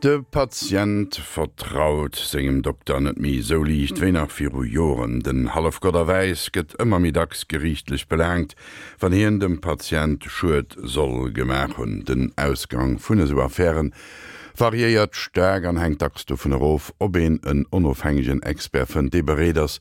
De Patient vertraut sengem Dokter net méi esou liicht wéi nach viru Joren. Den Hallefgott a Wäiss gëtt ëmmer méi dacks geriichtlech belaangt, wann hien dem Patient Schued soll gemaach hunn. Den Ausgang vun esou Affäre variéiert staark an hänkt dacks dovun erof, ob een en onofhängegen Expert fënnt, dee bereet ass,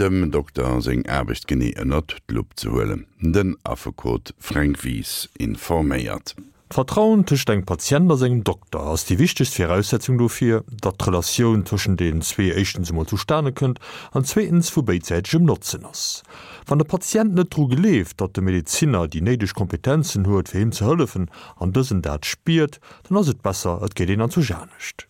dem Dokter seng Aarbecht genee ënnert d'Lupp ze huelen. Den Affekot Fränk Wies informéiert. D'Vertrauen tëscht engem Patient a sengem Dokter ass déi wichtegst Viraussetzung dofir, datt d'Relatioun tëschent deenen zwee éischtens emol zustane kënnt an zweetens vu béidsäitegem Notzen ass. Wann de Patient net dru gleeft, datt de Medezinner déi néideg Kompetenzen huet fir him ze hëllefen an dësen dat spiert, dann ass et besser et geet een anzwousch anescht.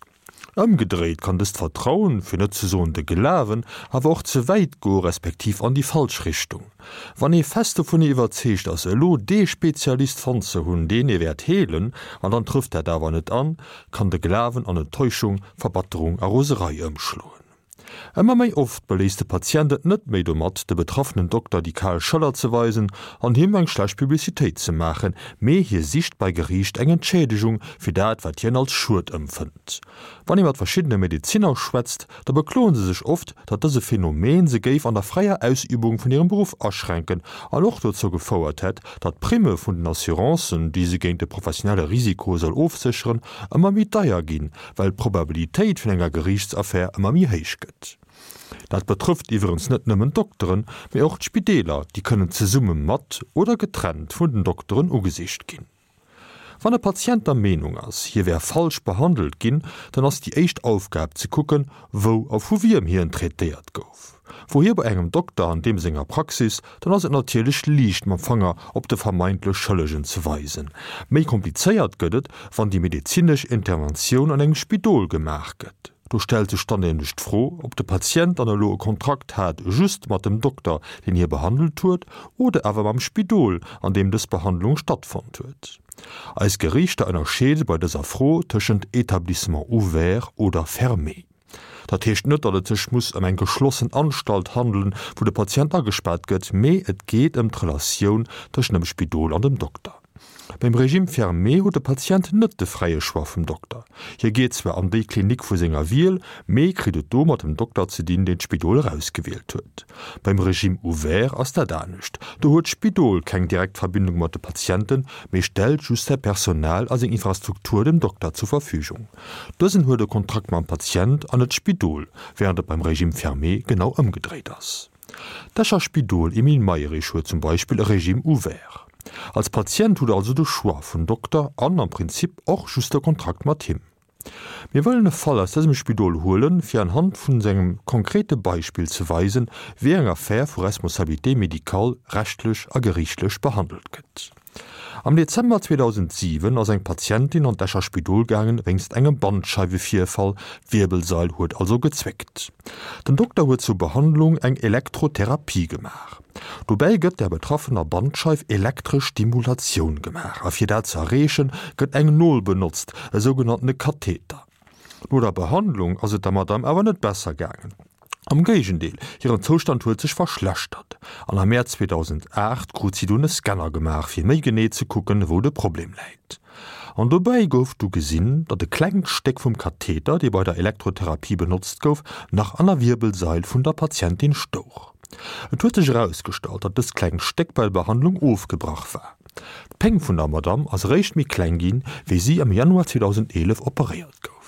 Ëmgedréit kann dëst Vertrauen, fir net ze soen de Glawen, awer och ze wäit goe respektiv an déi falsch Richtung. Wann ee fest dovun iwwerzeegt ass, elo dee Spezialist fonnt ze hunn, deen ee wäert heelen, an dann trëfft dat awer net an, kann de Glawen an Enttäuschung, Verbatterung a Roserei ëmschloen. Ëmmer méi oft beléisst de Patient et net méi domat, de betraffenen Dokter déi kal Schëller ze weisen an him eng schlecht Publicitéit ze maachen, mee hie sicht bei Geriicht eng Entschädegung fir dat, wat hien als Schued ëmfënnt. Wann ee mat verschiddene Medezinner schwätzt, da bekloen se sech oft, datt dëse Phänomen se géif an der fräier Ausübung vun hirem Beruff aschränken an och dozou gefouert hätt, datt d'Primme vun den Assurancen, déi se géint de professionelle Risiko soll ofsécheren, ëmmer méi deier ginn, well d'Probabilitéit vun enger Geriichtsaffär ëmmer méi héich gëtt. Dat betrëfft iwwerens net nëmmen d'Dokteren, mee och d'Spideeler, déi kënnen zesumme mat oder getrennt vun den Dokteren ugesicht ginn. Wann e Patient der Meenung ass, hie wär falsch behandelt ginn, dann ass déi éischt Aufgab ze kucken, wou a vu wiem hien traitéiert gouf. Wor hie bei engem Dokter an deem senger Praxis, dann ass et natierlech liicht mam Fanger op de vermeintlech Schëllegen ze weisen. Méi komplizéiert gëtt et, wann déi medezinesch Interventioun an engem Spidol gemaach gëtt. Do stellt sech dann nämlech d'Fro, ob de Patient dann elo e Kontrakt hat just mat dem Dokter, deen hie behandelt huet, oder awer mam Spidol, an deem dës Behandlung stattfonnt huet. Eis Geriichter ënnerscheede bei dëser Fro tëschent Établissement ouvert oder fermé. Dat heescht net, datt et sech muss ëm eng geschlossen Anstalt handelen, wou de Patient agespaart gëtt, mee et geet ëm d'Relatioun tëschent dem Spidol an dem Dokter. Beim Régime fermé huet de Patient net de fräie Choix vum Dokter. Hie geet zwar an déi Klinik vu senger Wiel, mee kritt et do mat dem Dokter ze dinn, deen d'Spidol erausgewielt huet. Beim Régime ouvert ass dat anescht. Do huet d'Spidol keng direkt Verbindung mat de Patienten, mee stellt just säi Personal a seng Infrastruktur dem Dokter zur Verfügung. Dësen huet e Kontrakt mam Patient an net d'Spidol, wärend et beim Régime fermé genau ëmgedréit ass. D'Escher Spidol Emile Mayrisch huet zum Beispill e Régime ouvert. Als Patient hutt der also de Choix vun Dokter an am Prinzip och just e Kontrakt mat him. Mir wëllen e Fall aus dësem Spidol huelen, fir anhand vun sengem konkrete Beispill ze weisen, wéi eng Affär vu Responsabilité médicale rechtlech a geriichtlech behandelt gëtt. Am Dezember 2007 ass eng Patientin an d'Escher Spidol gaangen wéinst engem Bandscheiwevirfall, d'Wierbelsail huet also gezwéckt. Den Dokter huet zur Behandlung eng Elektrotherapie gemaach. Dobäi gëtt der betraffener Bandscheif elektresch Stimulatioun gemaach a fir dat ze erreechen, gëtt eng Nol benotzt, e sougenanntene Katheter. No der Behandlung ass et der Madame awer net besser gaangen. Am Géigendeel, hiren Zoustand huet sech verschlechtert an am Mäerz 2008 krut si dunn e Scanner gemaach, fir méi genee ze kucken, wou de Problem läit. An dobäi gouf du gesinn, datt e klengt Stéck vum Katheter, dee bei der Elektrotherapie benotzt gouf, nach an der Wierbelsail vun der Patientin stouch. Et huet sech erausgestallt, datt dëst klengt Stéck bei der Behandlung ofgebrach war. D'Péng vun der Madamm ass eréischt méi kleng ginn, wéi si am Januar 2011 operéiert gouf.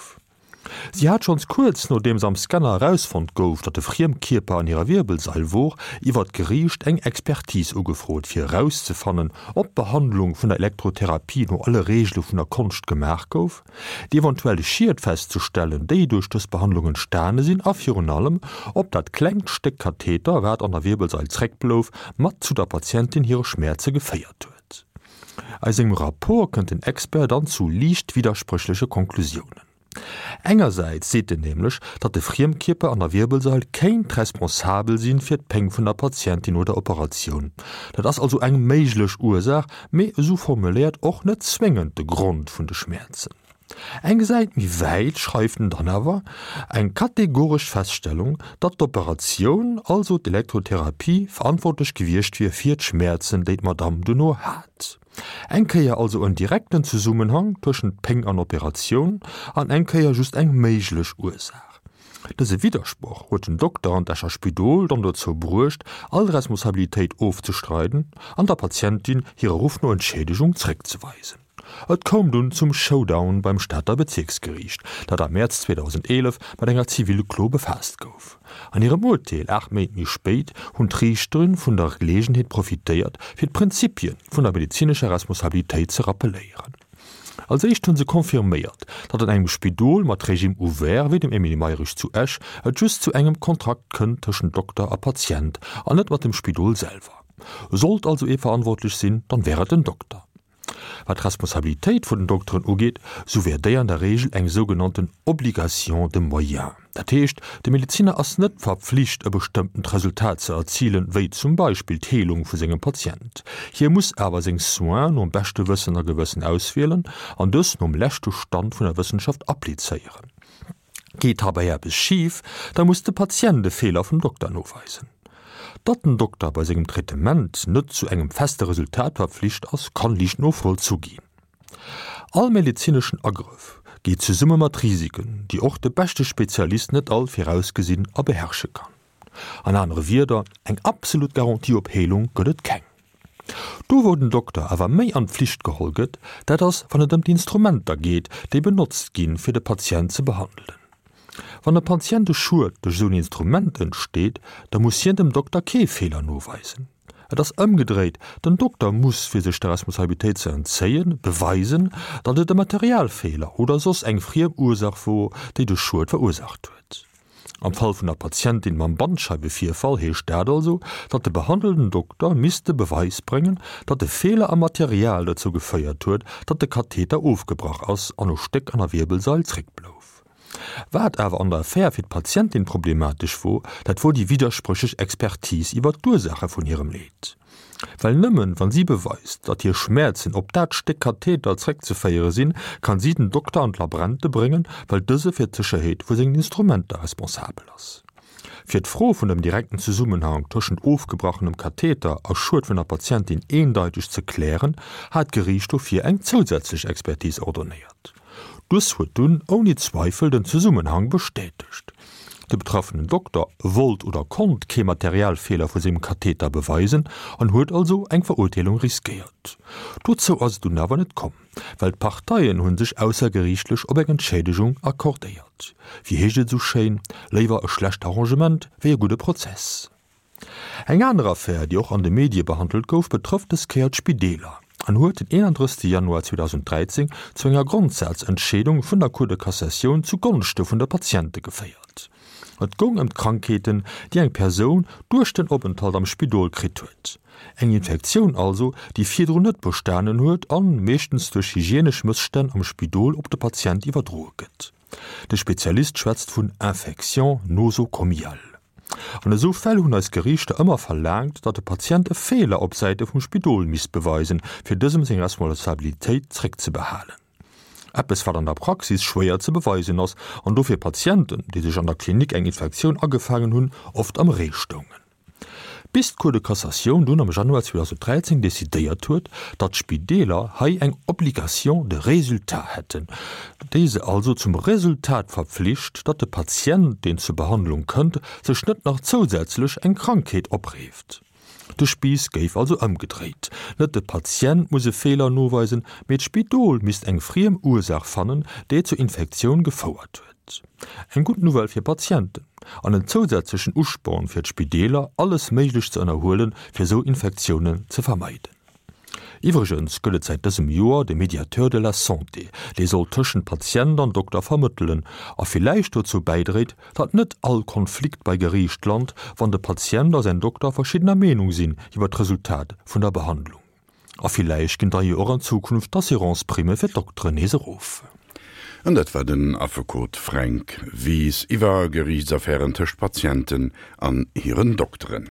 Si hat schonns kuerz nodeems am Scanner erausfonnt gouf, datt e Friemkierper an hirer Wierbelsail wor, iwwer d'Geriicht eng Expertise ugefrot, fir erauszefannen, ob d'Behandlung vun der Elektrotherapie no alle Reegele vun der Konscht gemaach gouf, déi eventuell Schied festzestellen, déi duerch dës Behandlung entstane sinn a virun allem, ob dat klengt Stéck Katheter, wat an der Wierbelsail zréckblouf, mat zu der Patientin hire Schmäerze geféiert huet. Aus sengem Rapport kënnt den Expert dann zu liicht widderspréchleche Konklusiounen. Engersäits seet en nämlech, datt de Friemkierper an der Wierbelsail kéint responsabel sinn fir d'Péng vun der Patientin no der Operatioun. Dat ass also eng méiglech Ursaach, mee esou formuléiert och net zwéngend de Grond vun de Schmäerzen. Eng Säit méi wäit schreift en dann awer eng kategoresch Feststellung, datt d'Operatioun, also d'Elektrotherapie, verantwortlech gewiescht wier fir d'Schmäerzen, déi d'Madamm duerno hat. Eng Kéier also en direkten Zesummenhang tëschent Péng an Operatioun an eng Kéier just eng méiglech Ursaach. Dëse Widdersproch huet den Dokter an d'Escher Spidol dann dozou bruecht, all Responsabilitéit ofzestreiden an der Patientin hire Ruff no Entschiedegung zréckzeweisen. Et koum dunn zum Showdown beim Stater Bezierksgeriicht, dat am Mäerz 2011 mat enger Zivilklo befaasst gouf. An hirem Urteel 8 Méint méi spéit hunn d'Riichtere vun der Geleegenheet profitéiert, fir d'Prinzipie vun der medezinescher Responsabilitéit ze rappeléieren. Als éischt hu se confirméiert, datt an engem Spidol mat Régime ouvert wéi dem Emile Mayrisch zu Esch et just zu engem Kontrakt kënnt tëschent Dokter a Patient an net mat dem Spidol selwer. Sollt also ee verantwortlech sinn, dann wär et den Dokter. Wat d'Responsabilitéit vun den Dokteren ugeet, sou wär déi an der Regel eng sougenannten Obligation de moyens. Dat heescht, de Medeziner ass net verpflicht, e bestëmmtent Resultat ze erzilen, wéi zum Beispill d'Heelung vu sengem Patient. Hie muss awer seng Soins nom beschte Wëssen a Gewëssen auswielen an dës nom leschte Stand vun der Wëssenschaft applizéieren. Geet heibäi eppes schif, da muss de Patient de Feeler vum Dokter noweisen. Datt den Dokter bei sengem Traitement net zu engem feste Resultat verpflicht ass, kann liicht novollzu ginn. All medezineschen Agrëff geet zesumme mat Risiken, déi och de beschte Spezialist net all virausgesinn a beherrsche kann. An anere Wierder, eng absolut Garantie op Heelung gëtt et keng. Do wou den Dokter awer méi an d'Pflicht geholl gëtt, dat ass wann et ëm d'Instrumenter geet, déi benotzt ginn, fir de Patient ze behandelen. Wann e Patient e Schued duerch esou en Instrument entsteet, da muss hien dem Dokter kee Feeler noweisen. Et ass ëmgedréit, den Dokter muss, fir sech der Responsabilitéit ze entzéien, beweisen, datt et e Materialfeeler oder soss eng friem Ursaach wor, déi de Schued verursaacht huet. Am Fall vun der Patientin mam Bandscheiwevirfall heescht dat also, datt de behandelnden Dokter misst de Beweis bréngen, datt e Feeler am Material dozou geféiert huet, datt de Katheter ofgebrach ass an e Stéck an der Wierbelsail zréckblouf. Wat awer an der Affär fir d'Patientin problematesch wor, dat wor déi widderspréchlech Expertise iwwer d'Ursaache vun hirem Leed. Well nëmmen wann si beweist, datt hir Schmäerzen op dat Stéck Katheter zréckzeféiere sinn, kann si den Dokter an d'Labrente bréngen, well dëse fir d'Sécherheet vu sengen Instrumenter responsabel ass. Fir d'Fro vun dem direkten Zesummenhang tëschent ofgebrochenem Katheter a Schued vun der Patientin eendeiteg ze klären, hat d'Geriicht dofir eng zousätzlech Expertise ordonnéiert. Dës huet dunn ouni Zweifel den Zesummenhang bestätegt. De betraffenen Dokter wollt oder konnt kee Materialfeeler vu sengem Katheter beweisen an huet also eng Verurteelung riskéiert. Dozou ass et dunn awer net komm, well d'Parteien hu sech aussergeriichtlech op eng Entschädegung accordéiert. Wéi heescht et esou schéin, Léiwer e schlecht Arrangement wéi e gudde Prozess. Eng aner Affär, déi och an de Medie behandelt gouf, betrëfft dës Kéier d'Spideeler an huet den 31 Januar 2013 zu enger Grondsazentscheedung vun der Cour de Cassatioun zu Gonschte vun de Patiente geféiert. Et goung ëm d'Krankheeten, déi eng Persoun duerch den Openthalt am Spidol kritt huet. Eng Infektioun also, déi virdrun net bestanen huet an meeschtens duerch hygienesch Mësstänn am Spidol op de Patient iwwerdroe gëtt. De Spezialist schwätzt vun Infection nosocomiale. An esou Fäll hunn eis Geriichter ëmmer verlaangt, datt de Patient e Feeler op Säite vum Spidol misst beweisen, fir dësem seng Responsabilitéit zréckzebehalen. Eppes, wat an der Praxis schwéier ze beweisen ass an dofir Patienten, déi sech an der Klinik eng Infektioun agefaangen hunn, oft am Ree stoungen. Bis d'Cour de Cassatioun dunn am Januar 2013 decidéiert huet, datt d'Spideeler hei eng Obligation de résultat hätten, déi se also zum Resultat verpflicht, datt de Patient, deen zur Behandlung kënnt, sech net nach zousätzlech eng Krankheet opreeft. De Spiiss géif also ëmgedréit, Net de Patient muss e Feeler noweisen, mee d'Spidol misst eng friem Ursaach fannen, déi zur Infektioun gefouert huet. Eng gutt Nouvelle fir Patienten an en zousätzlechen Usporn fir d'Spideeler, alles Méiglecht ze ënnerhuelen, fir esou Infektiounen ze vermeiden. Iwwregens gëtt et säit dësem Joer de Médiateur de la santé, dee soll tëschent Patient an Dokter vermëttelen a villäicht dozou bäidréit, datt net all Konflikt bei Geriicht lant, wann de Patient a säin Dokter verschiddener Meenung sinn iwwer d'Resultat vun der Behandlung. A villäicht ginn da jo och an Zukunft d'Assurance-Primme fir d'Dokteren nees erof. An dat war den Affekot Fränk Wies iwwer Geriichtsaffären tëscht Patienten an hiren Dokteren.